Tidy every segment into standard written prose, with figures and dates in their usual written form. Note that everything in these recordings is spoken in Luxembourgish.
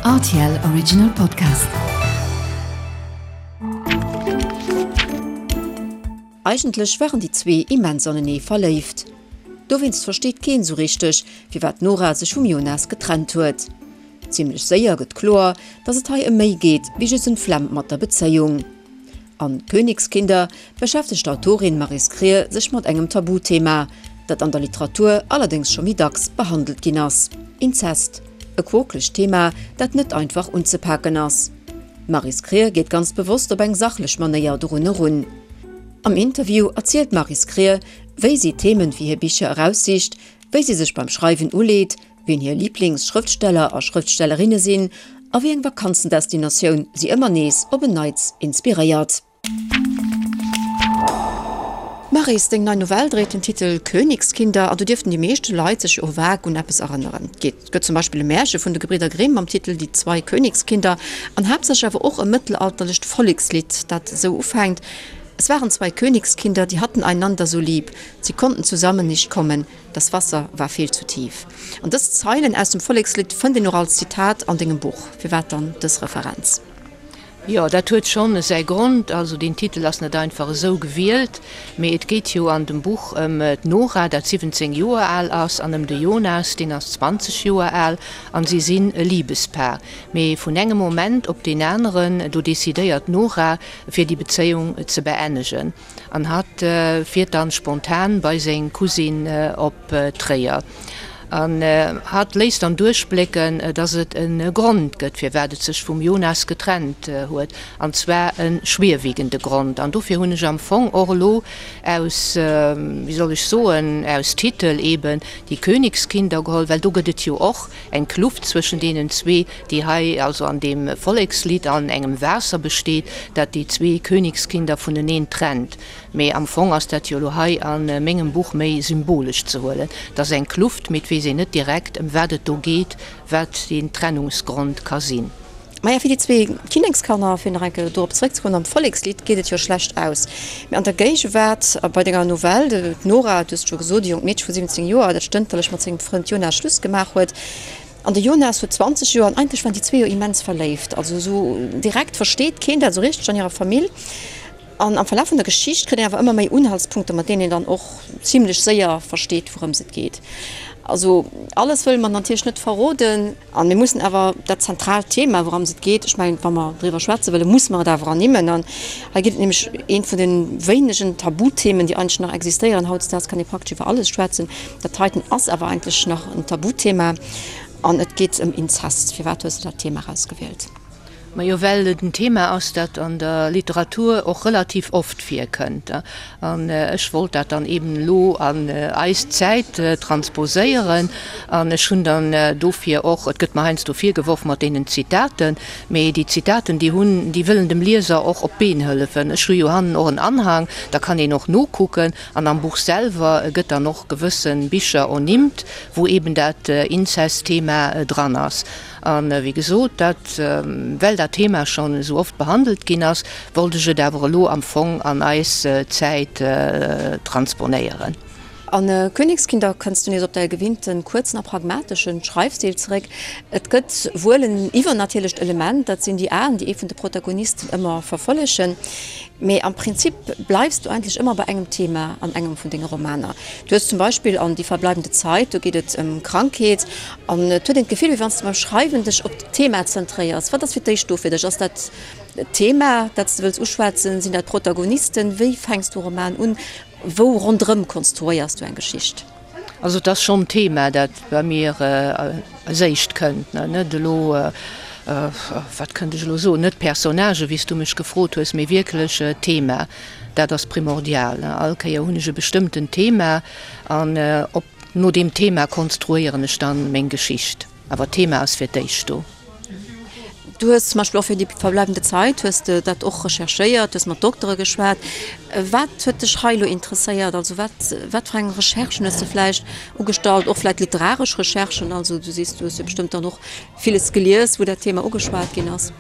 Rtl Original Podcast. Eigentlech waren déi zwee immens anenee verléift. Dowéinst versteet keen sou richteg, firwat d'Nora sech vum Jonas getrennt huet. Zimmlech séier gëtt kloer, dass et hei ëm méi geet wéi just ëm d'Flemm mat der Bezéiung. An Königskinder beschäftegt d'Autorin Maryse Krier sech mat engem Tabuthema, dat an der Literatur allerdéngs scho méi dacks behandelt ginn ass, Inzest. E quokelegt Thema, dat net einfach unzepaken ass. D'Maryse Krier geet ganz bewosst op eng sachlech Manéier dorun erun. Am Interview erzielt d'Maryse Krier, wéi si d'Themen fir hir Bicher eraussicht, wéi si sech beim Schreiwen uleet, wien hir Liiblingsschrëftsteller a Schrëftstellerinne sinn a wéi eng Vakanzendestinatioun si ëmmer nees op en Neits inspiréiert. Maryse, deng nei Novell dréit den Titel Königskinder an do dierften déi meeschte Leit sech jo vag un eppes erënneren. Et gëtt zum Beispill e Märche vun de Gebridder Grimm mam Titel Die zwei Königskinder an haaptsächlech awer och e mëttelalterlecht Vollekslidd, dat esou ufänkt, Es waren zwei Königskinder, die hatten einander so lieb, sie konnten zusammen nicht kommen, Das Wasser war viel zu tief. An dës Zeilen aus dem Vollekslidd fënnt een och als Zitat an dengem Buch. Firwat dann dës Referenz? Jo, dat huet schonn säi Grond. Also deen Titel ass net einfach esou gewielt, mee et geet jo an dem Buch ëm d'Nora, dat 17 Joer al ass, an ëm de Jonas, deen ass 20 Joer al, an si sinn e Libespaar. Mee vun engem Moment op deen aneren, do decidéiert d'Nora, fir déi Bezéiung ze beennegen. An hatt fiert dann spontan bei seng Cousine op Tréier. An hatt léisst dann duerchblécken, dass et e Grond gëtt, firwat et sech vum Jonas getrennt huet, an zwar e schwierwiegende Grond. An dofir hunn ech am Fong och elo aus, wéi soll ech soen, aus Titel eben Die Königskinder geholl, well do gëtt et jo och eng Kluft zwëschen deenen zwee, déi hei also an deem Vollekslidd an engem Waasser besteet, dat déi zwee Königskinder vuneneen trennt. Mee am Fong ass dat jo elo hei a mengem Buch méi symbolesch ze huelen. Et ass eng Kluft, mee et weess een net direkt, ëm wat et do geet, wat deen Trennungsgrond ka sinn. Maja, fir déi zwee Kinnekskanner, fir nach eng Kéier dorop zeréckzekommen, am Vollekslidd geet et jo schlecht aus. Mee an der Géigewaart, a bei denger Novell, d'Nora, du hues et scho gesot, e jonkt Meedche vu 17 Joer, dat stënterlech mat sengem Frënd Jonas Schluss gemaach huet, An de Jonas huet 20 Joer an eigentlech waren déi zwee jo immens verléift. Also esou direkt versteet keen dat esou richteg an hirer Famill. An am Verlaf vun der Geschicht kritt een awer ëmmer méi Unhaltspunkter, mat deenen een dann och zimlech séier versteet, wourëms et geet. Also alles wëlle mer natierlech net verroden. An mir mussen awer dat zentraalt Thema, wourëms et geet, ech mengen, wa mer driwwer schwätze wëllen, musse mer et awer ernimmen. An hei geet et nämlech eent vun de wéinegen Tabuthemen, déi eigentlech nach existéieren. Hautdesdaags kann ee praktesch iwwer alles schwätzen. Dat heiten ass awer eigentlech nach en Tabuthema an et geet ëm Inzest. Firwat hues de dat Thema erausgewielt? Majo, well et en Thema ass, dat an der Literatur och relativ oft virkënnt. An ech wollt dat dann eben elo an eis Zäit transposéieren. An ech hunn dann dofir och, et gëtt mer heiansdo virgeworf mat deenen Zitaten, mee déi Zitaten, déi hunn, déi wëllen dem Lieser och op d'Been hëllefen. Ech hu jo hannen och en Anhang, da kann een och nokucken. An am Buch selwer gëtt dann och gewësse Bicher ernimmt, wou eben dat Inzest-Thema dran ass. A wéi gesot, dat, well dat Thema schonn esou oft behandelt ginn ass, wollt ech et awer elo am Fong an eis Zäit transponéieren. A Königskinder kënns du nees op däi gewinnte kuerzen a pragmatesche Schreifstil zeréck. Et gëtt wuel en iwwernatierlecht Element, dat sinn déi Aen, déi ee vun de Protagonisten ëmmer verfollegen. Mee am Prinzip bleifs du eigentlech ëmmer bei engem Thema an engem vun denge Romaner. Du hues zum Beispill an Die verbleibende Zeit, do geet et ëm Krankheet an et huet een d'Gefill, wéi wann s de beim Schreiwen dech op d'Thema zentréiers. Wat ass fir d'éischt do fir dech? Ass dat d'Thema, dat s de wëlls uschwätzen? Sinn dat d'Protagonisten? Wéi fänks du e Roman un? Wou ronderëm konstruéiers du eng Geschicht? Also et ass schonn d'Thema, dat bei mir als éischt kënnt. Net elo, wat kënnt ech elo soen, net d'Personnagë wéi s du mech gefrot hues, mee wierklech d'Thema. Dat ass primordial. All Kéier hunn ech e bestëmmtent Thema an op no deem Thema konstruéieren ech dann meng Geschicht. Awer d'Thema ass fir d'éischt do. Du hues zum Beispill och fir Die verbleibende Zeit hues de dat och recherchéiert, hues mat Doktere geschwat. Wat huet dech hei elo interesséiert? Also wat, wat fir eng Recherchen hues de vläicht ugestallt, och vläicht literaresch Recherchen? Also du sees, du hues jo bestëmmt dann och villes gelies, wou dat Thema ugeschwat ginn ass.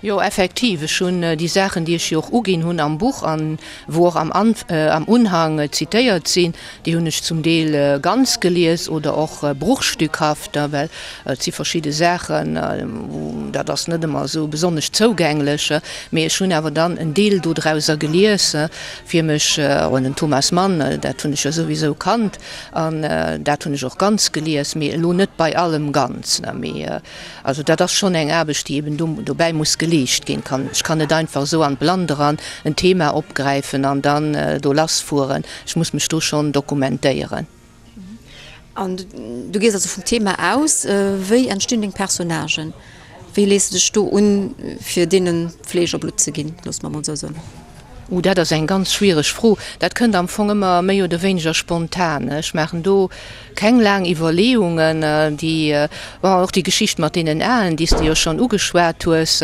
Jo, effektiv. Ech hunn déi Saachen, déi ech jo och uginn hunn am Buch an wou och am am Unhang zitéiert sinn, déi hunn ech zum Deel ganz gelies oder och bruchstückhaft, well et si verschidde Saachen, wou dat ass net ëmmer esou besonnesch zougänglech. Mee ech hunn awer dann en Deel dodrauser gelies, fir mech, oh, den Thomas Mann, dat hunn ech jo souwisou kannt an dat hunn ech och ganz gelies, mee elo net bei allem ganz, mee. Also dat ass schonn eng Aarbecht, déi eben do dobäi muss geleescht ginn. Kann, ech kann net einfach esou an d'Blannt eran en Thema opgräifen an dann do lassfueren. Ech muss mech do schonn dokumentéieren. An du gees also vum Thema aus. Wéi entstinn deng Personnagen? Wéi lees de dech do un, fir deene Fleesch a Blutt ze ginn, loosse mer emol esou soen? Uh, dat ass eng ganz schwiereg Fro. Dat kënnt am Fong ëmmer méi oder wéineger spontan. Ech maachen do keng laang Iwwerleeungen. Déi, bon, och déi Geschicht mat deenen Aen, déi s de jo schonn ugeschwat hues,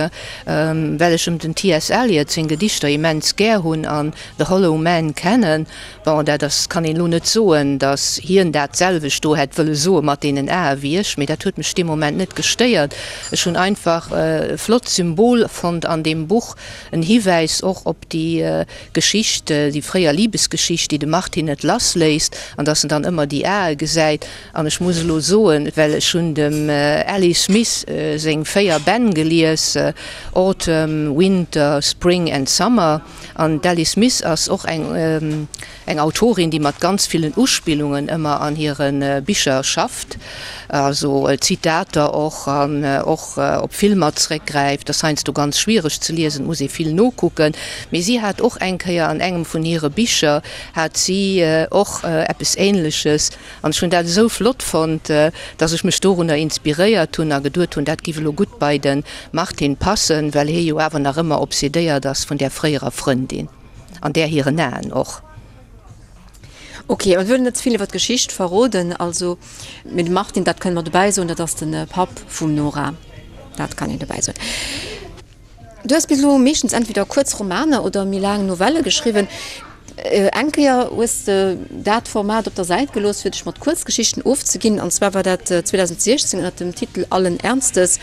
well ech em den TS. Eliot seng Gedichter immens gär hunn an The Hollow Man kennen. Bon, dat ass, kann een elo net soen, datt hien dat selwecht do hätt wëlle soe mat deenen Ae wéi ech, mee dat huet mech dee Moment net gestéiert. Ech hunn einfach e flott Symbol fonnt an deem Buch, En Hiwäis och op déi Geschicht, déi fréier Libesgeschicht, déi de Martin net lass léisst, an dass en dann ëmmer déi Ae gesäit. An ech muss elo soen, well ech hunn dem Ali Smith seng 4 Bänn gelies, Autumn, Winter, Spring and Summer, an d'Ali Smith ass och eng, Eng Autorin, déi mat ganz villen Uspillungen ëmmer an hire Bicher schafft, also Zitater och an och op Filmer zréckgräift, ass heiansdo ganz schwiereg ze liesen, et muss ee vill nokucken. Mee si hat och eng Kéier an engem vun hire Bicher hat si och eppes Ähnleches an ech hunn dat esou flott fonnt, dass ech mech dorunner inspiréiert hunn a geduet hunn, dat giff elo gutt bei de Martin passen, well hie jo awer nach ëmmer obsedéiert ass vun där fréierer Frëndin. An där hiren Aen och. Ok, mir wëllen net ze vill iwwer d'Geschicht verroden, also, mee de Martin, dat kënne mer dobäi soen, dat ass de Papp vum Nora, dat kann een dobäi soen. Du hues bis elo meeschtens entweder kuerz Romaner oder méi laang Novelle geschriwwen. Eng Kéier hues de dat Format op der Säit gelooss, fir dech mat Kuerzgeschichten ofzeginn, an zwar war dat 2016 ënner dem Titel Allen Ernstes.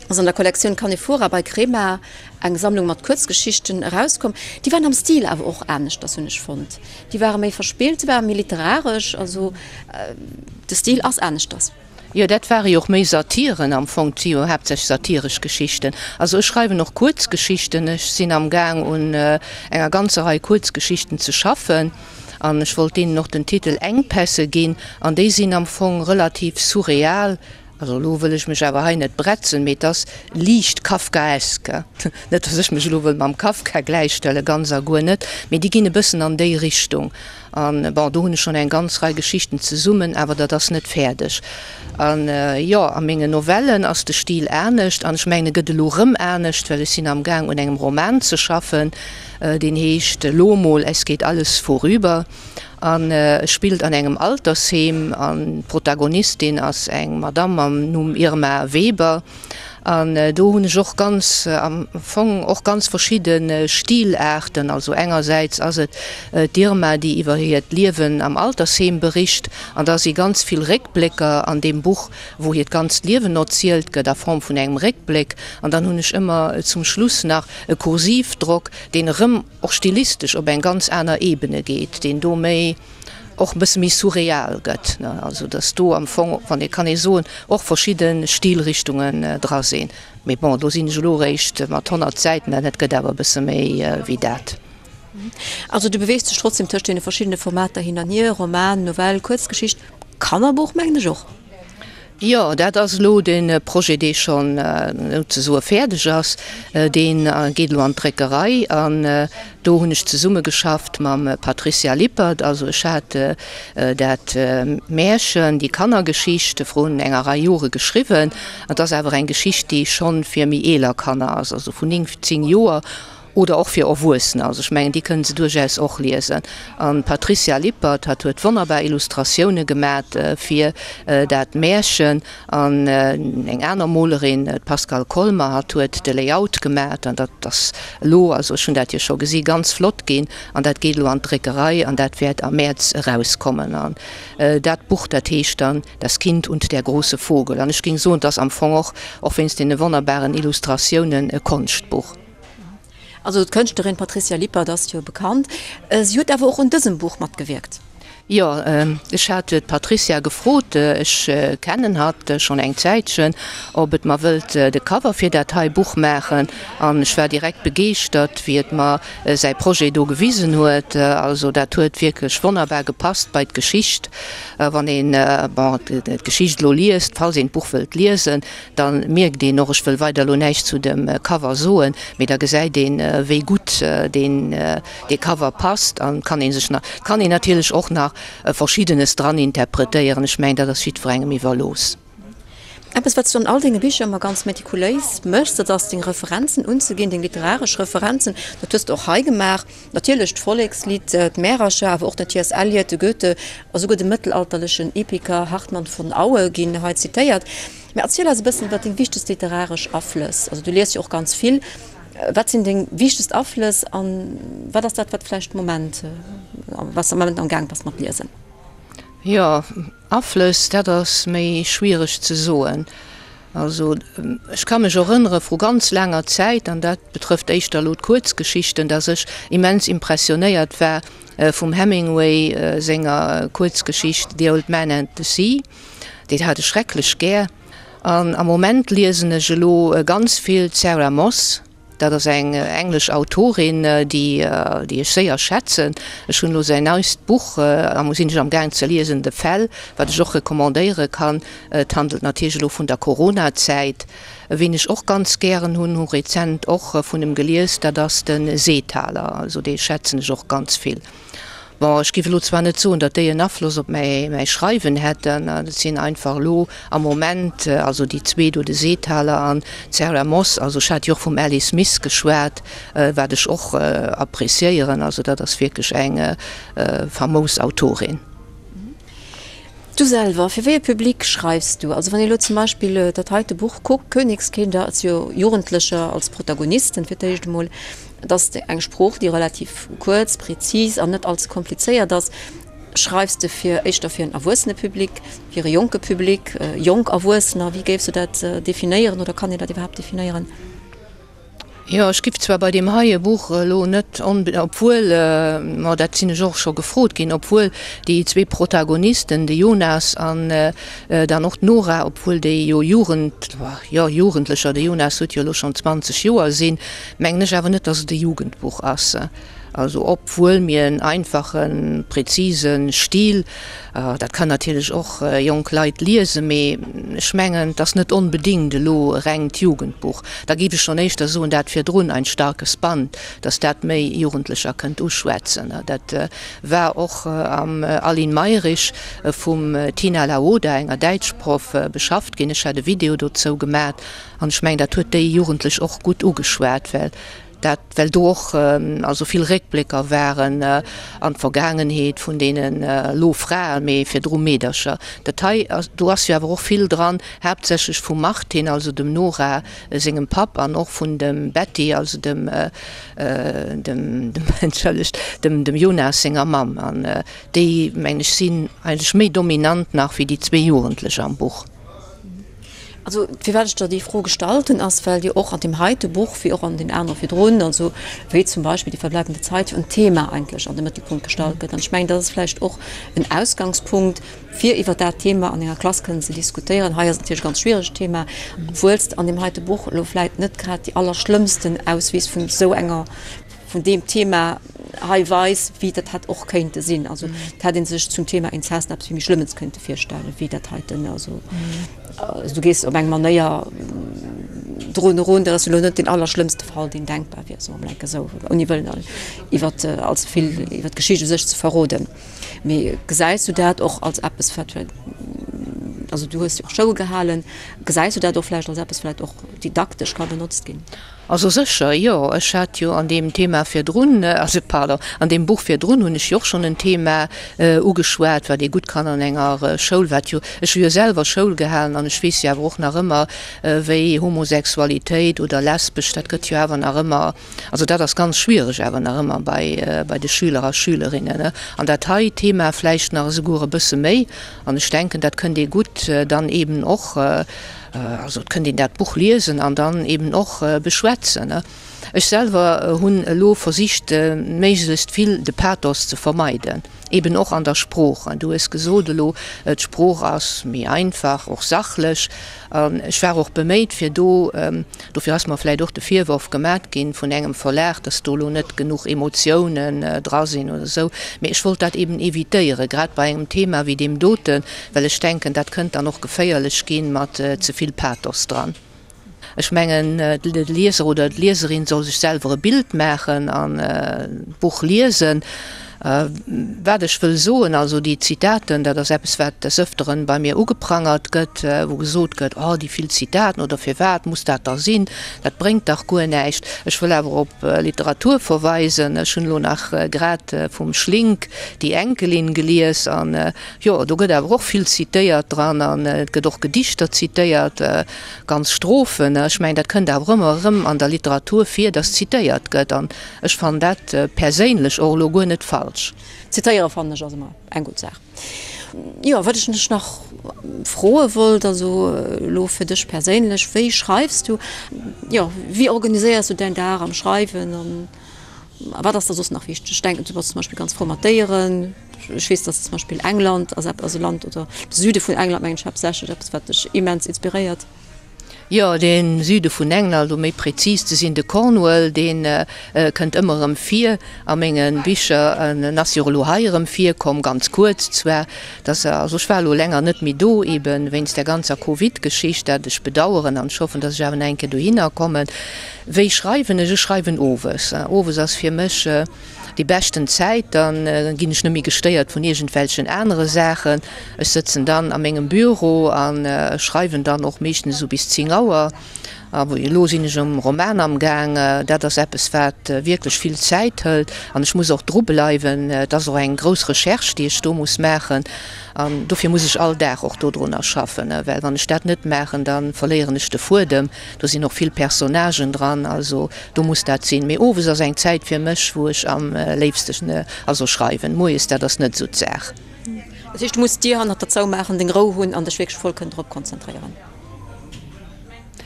Ass an der Kollektioun Canephora bei Crema eng Sammlung mat Kuerzgeschichten erauskomm. Déi waren am Stil awer och aneschters, hunn ech fonnt. Déi ware méi verspillt, se ware méi literaresch, also de Stil ass aneschters. Jo, dat ware jo och méi Satiren am Fong, et si jo haaptsächlech satiresch Geschichten. Also ech schreiwen och Kuerzgeschichten, ech sinn am Gaang un enger ganzer Rei Kuerzgeschichten ze schaffen an ech wollt deenen och den Titel Engpässe ginn an déi sinn am Fong relativ surreal, Also elo wëll ech mech awer hei net bretzen, mee et ass liicht kafkaesk. Net, datt ech mech elo wëll mam Kafka gläichstellen, ganz a guer net, mee déi ginn e bëssen an déi Richtung. An, bon, do hunn ech schonn eng ganz Rei Geschichten zesummen, awer dat ass net fäerdeg. An, jo, a mengen Novellen ass de Stil anescht an ech mengen, e gëtt elo erëm anescht, well ech sinn amgaang un engem Roman ze schaffen, deen heescht Lo mol, es geht alles vorüber. An e spillt an engem Altersheem an d'Protagonistin ass eng Madamm mam Numm Irma Weber. An do hunn ech och ganz am Fong och ganz verschidde Stilaarten. Also engersäits ass et d'Irma, déi iwwer hiert Liewen am Altersheem bericht an da si ganz vill Réckblécker an deem Buch, wou hiert ganzt Liewen erzielt gëtt a Form vun engem Réckbléck. An dann hunn ech ëmmer zum Schluss nach e Kursivdrock, deen erëm och stilistesch op eng ganz aner Ebene geet, deen do méi, och e bësse méi surreal gëtt, ne, also datt do am Fong, wann ee kann ee soen, och verschidde Stilrichtungen dra sinn. Mee bon, do sinn ech elo eréischt mat 100 Säiten, an et gëtt awer e bësse méi wéi dat. Also du beweegst dech trotzdem tëscht deene verschiddene Formater hin an hier, Roman, Novell, Kuerzgeschicht, Kannerbuch mengen ech och. Jo, dat ass elo de Projet, dee schonn souzesoe fäerdeg ass. Dee geet elo an d'Dréckerei an do hunn ech zesummegeschafft mam Patricia Lippert. Also ech hat dat Märchen, déi Kannergeschicht vrun enger Rei Jore geschriwwen. Et ass awer eng Geschicht, déi schonn fir méi eeler Kanner ass, also vun 9, 10 Joer. Oder och fir Erwuessener, also ech mengen, déi kënnen se duerchaus och liesen. An d'Patricia Lippert, hatt huet wonnerbar Illustratioune gemat fir dat Märchen. An eng aner Molerin, d'Pascale Kolmer, hatt huet de Layout gemat. An dat ass elo, also ech hunn dat jo scho gesi, ganz flott ginn. An dat geet elo an d'Dréckerei an dat wäert am Mäerz erauskommen. An dat Buch, dat heescht dann Das Kind und der große Vogel. An ech géing soen, et ass am Fong och, och wéinst deene wonnerbaren Illustratiounen, e Konschtbuch. Also d'Kënschtlerin Patricia Lippert ass jo bekannt. Si huet awer och un dësem Buch matgewierkt. Jo, ech hat d'Patricia gefrot, ech kennen hatt schonn eng Zäitchen, ob et mer wëllt de Cover fir dat hei Buch maachen. An ech war direkt begeeschtert, wéi et mer säi Projet do gewisen huet. Also dat huet wierklech wonnerbar gepasst bei d'Geschicht. Wann een, bon, d'Geschicht elo liest, falls een d'Buch wëllt liesen, Da mierkt een och, ech wëll weider elo näischt zu dem Cover soen, mee da gesäit een, wéi gutt deen dee Cover passt an kann ee sech nach, kann een natierlech och nach Verschiddenes dran interpretéieren. Ech mengen, dat ass jiddwerengem iwwerlooss. Eppes, wat s du an all denge Bicher ëmmer ganz metikuléis méchs, dat ass deng Referenzen unzeginn, deng literaresch Referenzen. Dat hues de och hei gemaach. Natierlech d'Vollekslidd, d'Märercher, awer och den T. S. Eliot, de Goethe a souguer de mëttelalterlechen Epiker Hartmann von Aue ginn hei zitéiert. Mä erziel eis e bëssen iwwer deng wichtegst literaresch Aflëss. Also du lies jo och ganz vill. Wat sinn deng wichtegst Aflëss a wat ass dat, wat vläicht de Moment, wat s de am Moment am Gaang bass mat liesen? Jo, Aflëss, dat ass méi schwiereg ze soen. Also ech ka mech erënnere vru ganz laanger Zäit, an dat betrëfft éischter elo d'Kuerzgeschichten, datt ech immens impressionéiert war vum Hemingway senger Kuerzgeschicht The Old Man and the Sea. Déi hat ech schrecklech gär. An am Moment liesen ech elo ganz vill d'Sarah Moss. Dat ass eng englesch Autorin, déi déi ech séier schätzen. Ech hunn elo säin neist Buch, am sinn ech am gaang ze liesen, The Fell, wat ech och recommandéiere kann. Et handelt natierlech elo vun der Corona-Zäit. Ween ech och ganz gären hunn, hu rezent och vun em gelies, dat ass de Seethaler. Also dee schätzen ech och ganz vill. Bon, ech giff elo zwar net soen, datt déi en Afloss op mäi Schreiwen hätten, et sinn einfach elo am Moment, also déi zwee do, de Seethaler an d'Sarah Moss, also ech hat jo och vum Ali Smith geschwat, wat ech och appréciéieren, also dat ass wierklech eng famous Autorin. Du selwer, fir wéi e Public schreifs du? Also wann ee lo zum Beispill dat heite Buch kuckt, Königskinder, et si jo Jugendlecher als Protagonisten fir d'éischt emol, et ass eng Sprooch, déi relativ kuerz, prezis an net allze komplizéiert ass. Schreifs de fir éischter fir en erwuessene Public, fir e jonke Public, jonk Erwuessener? Wéi géifs du dat definéieren oder kann een dat iwwerhaapt definéieren? Jo, ech giff zwar bei deem heie Buch elo net onbe-, obwuel, ma dat sinn ech och scho gefrot ginn, obwuel déi zwee Protagonisten, de Jonas an dann och d'Nora, obwuel déi jo Jugend, jo Jugendlecher, de Jonas huet jo elo schonn 20 Joer, sinn, mengen ech awer net, dass et e Jugendbuch ass. Also obwuel mir en einfachen, präzise Stil, dat kann natierlech och jonk Leit liesen, mee ech mengen, et ass net onbedéngt elo e rengt Jugendbuch. Da géif ech schonn éischter soen, dat virdrun, Ein starkes Band, datt dat méi Jugendlecher kënnt uschwätzen. Dat war och am Aline Mayrisch vum Tina Laoda, enger Däitschproff, beschafft ginn. Ech hat e Video dozou gemat an ech mengen, dat huet déi Jugendlech och gutt ugeschwat, well Dat well do och also vill Réckblécker waren an d'Vergaangenheet vun deenen elo Fraen, mee virdru Meedercher. Dat hei, do ass jo awer och vill dran, haaptsächlech vum Martin, also dem Nora sengem Papp, an och vun dem Betty, also dem, dem, entschëllegt, dem, dem Jonas senger Mamm. An déi, mengen ech, sinn eigentlech méi dominant nach wéi déi zwee Jugendlech am Buch. Also, firwat ech der déi Fro gestallt hunn, ass, well jo och an deem heite Buch, wéi och an deenen anere virdrun, also wéi zum Beispill Die verbleibende Zeit, jo en Thema eigentlech an de Mëttelpunkt gestallt gëtt. An ech mengen, dat ass vläicht och en Ausgangspunkt, fir iwwer dat Thema an enger Klass kënnen ze diskutéieren. Hei ass et natierlech e ganz schwieregt Thema, obwuel s de an deem heite Buch elo vläicht net grad déi allerschlëmmsten Auswiss vun esou enger, vun deem Thema hei weis, wéi dat hätt och kéinte sinn. Also et hätt ee sech zum Thema Inzest eppes vill méi Schlëmmes kéinte virstellen, wéi dat heiten. Also du gees op eng Manéier drun erun, dat ass elo net deen allerschlëmmste Fall, deen denkbar wier, soe mer enke esou, ouni wëllen iwwer allze vill iwwer d'Geschicht u sech ze verroden. Mee gesäis du dat och als eppes, wat. Also du hues jo och Schoul gehalen. Gesäis du dat och vläicht als eppes vläicht och didaktesch ka benotzt ginn? Also sécher, jo. Ech hat jo an deem Thema virdrun, also pardon, an deem Buch virdrun hunn ech jo och schonn en Thema ugeschwat, wat ee gutt kann an enger Schoul, wat jo, ech hu jo selwer Schoul gehalen an ech weess jo awer och nach ëmmer, wéi Homosexualitéit oder lesbesch, dat gëtt jo awer nach ëmmer, also dat ass ganz schwiereg awer nach ëmmer bei, bei de Schüler a Schülerinnen. An dat hei Thema vläicht nach esouguer e bësse méi. An ech denken, dat kënnt ee gutt dann eeben och, Also et kënnt een dat Buch liesen an dann eben och beschwätzen. Ech selwer hunn elo versicht méiglechst vill de Pathos ze vermeiden, eben och an der Sprooch. Du hues gesot elo, d'Sprooch ass méi einfach, och sachlech. An ech war och beméit fir do, dofir ass mer vläicht och de Virworf gemat ginn vun engem Verlag, dass do elo net genuch Emotiounen dra sinn oder esou, mee ech wollt dat eben evitéieren, grad bei engem Thema wéi deem doten, Well ech denken, dat kënnt dann och geféierlech ginn mat ze vill Pathos dran. Ech mengen, de Lieser oder d'Lieserin soll sech selwer e Bild maachen an d'Buch liesen. Wat ech wëll soen, also déi Zitaten, dat ass eppes, wat des Ëfteren bei mir ugeprangert gëtt, wou gesot gëtt, oh déi vill Zitaten oder firwat muss dat da sinn, dat bréngt dach guer näischt. Ech wëll awer op Literatur verweisen. Ech hunn elo nach grad vum Schlink Die Enkelin gelies an Jo, do gëtt awer och vill zitéiert dran an et gëtt och Gedichter zitéiert, ganz Strophen. Ech mengen, dat kënnt awer ëmmer erëm an der Literatur vir, dass zitéiert gëtt an ech fannen dat perséinlech och elo guer net falsch. Zitéiere fannen ech ass ëmmer eng gutt Saach. Jo, wat ech dech nach froe wollt, also elo fir dech perséinlech, wéi schreifs du? Jo, wéi organiséiers du däin Dag am Schreiwen an wat ass der soss nach wichteg? Ech denken, du bass zum Beispill ganz frou mat Déieren. Ech weess, dass zum Beispill England ass eppes, also Land oder de Süde vun England mengen ech haaptsächlech, eppes wat dech immens inspiréiert. Jo, de Süde vun England, um méi prezis ze sinn, de Cornwall, dee kënnt ëmmer erëm vir a menge Bicher. En ass jo och elo hei erëm virkomm, ganz kuerz zwar. Dass, also ech war elo länger net méi do, eebe wéinst där ganzer Covid-Geschicht, dat ech bedaueren an ech hoffen, dass ech awer nach eng Kéier dohinner kommen. Wéi schreiwen ech? Ech schreiwen owes. Owes ass fir mech Déi beschten Zäit, dann ginn ech net méi gestéiert vun iergendwelchen anere Saachen. Ech sëtzen dann a mengem Büro a schreiwen dann och meeschtens esou bis 10 Auer. A elo sinn ech um Roman amgaang. Dat ass eppes, wat wierklech vill Zäit hëlt an ech muss och dru bleiwen. Et ass och eng grouss Recherche, déi ech do muss maachen an dofir muss ech all Dag och dodrunner schaffen, well wann ech dat net maachen, da verléieren ech de Fuedem. Do sinn och vill Personnagen dran, also do muss dat sinn. Mee owes ass eng Zäit fir mech, wou ech am léifsten also schreiwen. Moies, dat ass net esou d'Saach. Dat heescht, du muss d'Dier hannert der zoumaachen, deng Rou hunn an dech wierklech voll kënnen drop konzentréieren?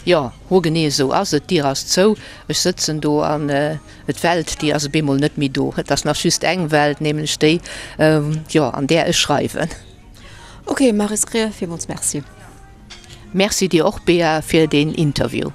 Jo, hoergenee esou ass et. D'Dier ass zou, ech sëtzen do an d'Welt, déi ass op eemol net méi do. Et ass nach just eng Welt, nämlech déi, jo, an där ech schreiwen. Ok, Maryse Krier, villmools Merci. Merci dir och Bea fir deen Interview.